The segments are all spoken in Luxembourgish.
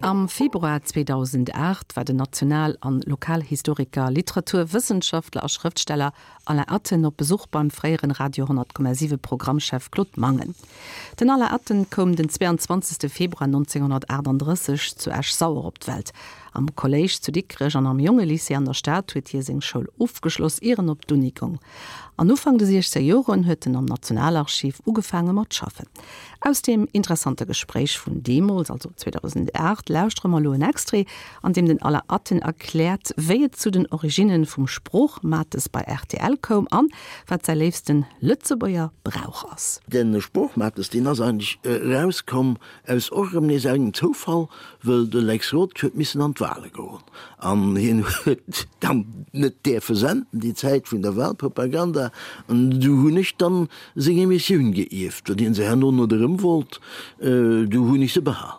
Am Februar 2008 war den National an Lokalhistoriker, Literaturwëssenschaftler a Schrëftsteller Alain Atten op Besuch beim fréieren Radio 10,7 Programmchef Claude Mangen. Den Alain Atten koum den 22. Februar 1938 zu Esch-Sauer op d'Welt. Am Kolléisch zu Dikrech an am Jongelycée an der Stad huet hie seng Schoul ofgeschloss, ier en op d'Uni goung. An Ufank de 60 Joren huet en am Nationalarchiv ugefaange mat schaffen. Aus deem interessante Gespréich vun deemools, also 2008, lauschtere mer elo en Extrait, an deem den Alain Atten erkläert, wéi et zu den Originne vum Sproochmates bei rtl koum an wat säi léifsten Lëtzebuerger Brauch ass. De Sproochmates, deen ass eigentlech erauskomm aus och erëm nees engem Zoufall, wëll de Lex Roth huet missen an d'Wale goen an hien huet dann net däerfe senden déi Zäit vun der Walpropaganda an du hunn ech dann seng Emissioun geierft, well hien se herno net erëm wollt, du hunn ech se behal.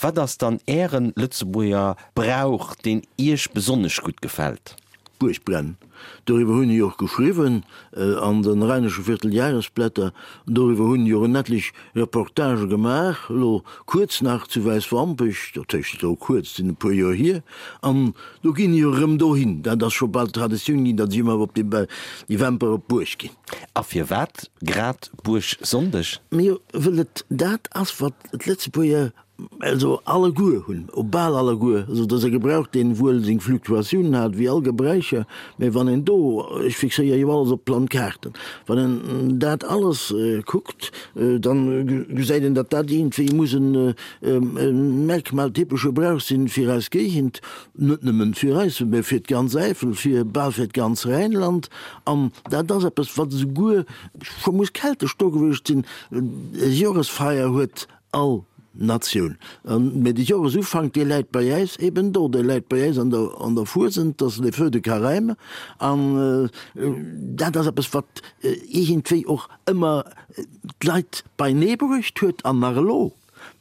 Wat ass dann Ären Lëtzebuerger Brauch, deen Iech besonnesch gutt gefält? Buergbrennen, doriwwer hunn ech och geschriwwen an den Rheinische Vierteljahresblätter, doriwwer hunn ech och en etlech Reportagë gemaach, elo kuerz nach zu Wäiswampech, dat heescht elo kuerz, sinn e puer Joer hier, an do ginn ech och erëm dohin, dat ass scho bal Traditioun ginn, datt ech ëmmer op déi Wämper op d'Buerg ginn. A firwat grad Buergsonndeg? Mee wëll et dat ass, wat d'Lëtzebuerger Also alleguer hunn, o bal alleguer, also et ass e Gebrauch, deen wuel seng Fluktuatiounen hat, wéi all Gebräucher, mä wann een do, ech fixéiere jo alles op Landkaarten, wann een dat alles kuckt, dann gesäit een, datt dat iergendwéi muss e merkmaltypesche Brauch sinn fir eis Géigend, net nëmmen fir eis, mä fir d'ganz Äifel, fir bal fir d'ganz Rheinland. An dat ass eppes, wat esouguer scho muss keltesch do gewiescht sinn, e Joresfeier huet All Natioun. Mä de Joresufank, dee läit bei äis eben do, dee läit bei äis an der, an der Fuesent, dat ass les feux de Carême. An dat ass eppes, wat iergendwéi och ëmmer d'Leit beinee bruecht huet an nach elo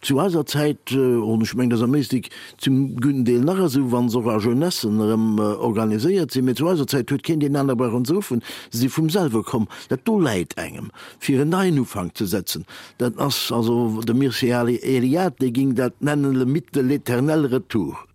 zu eiser Zäit, an ech mengen, dat ass am Éislek zum gudden Deel nach esou, wa se och a Jeunessen erëm organiséiert sinn, mä zu eiser Zäit huet keen deen anere brauchen ze ruffen, se si vum selwe komm. Dat do läit engem, fir en neien Ufank ze setzen. Dat ass also de Mircea Eliade, dee ging dat nennen le mythe de l'éternel retour.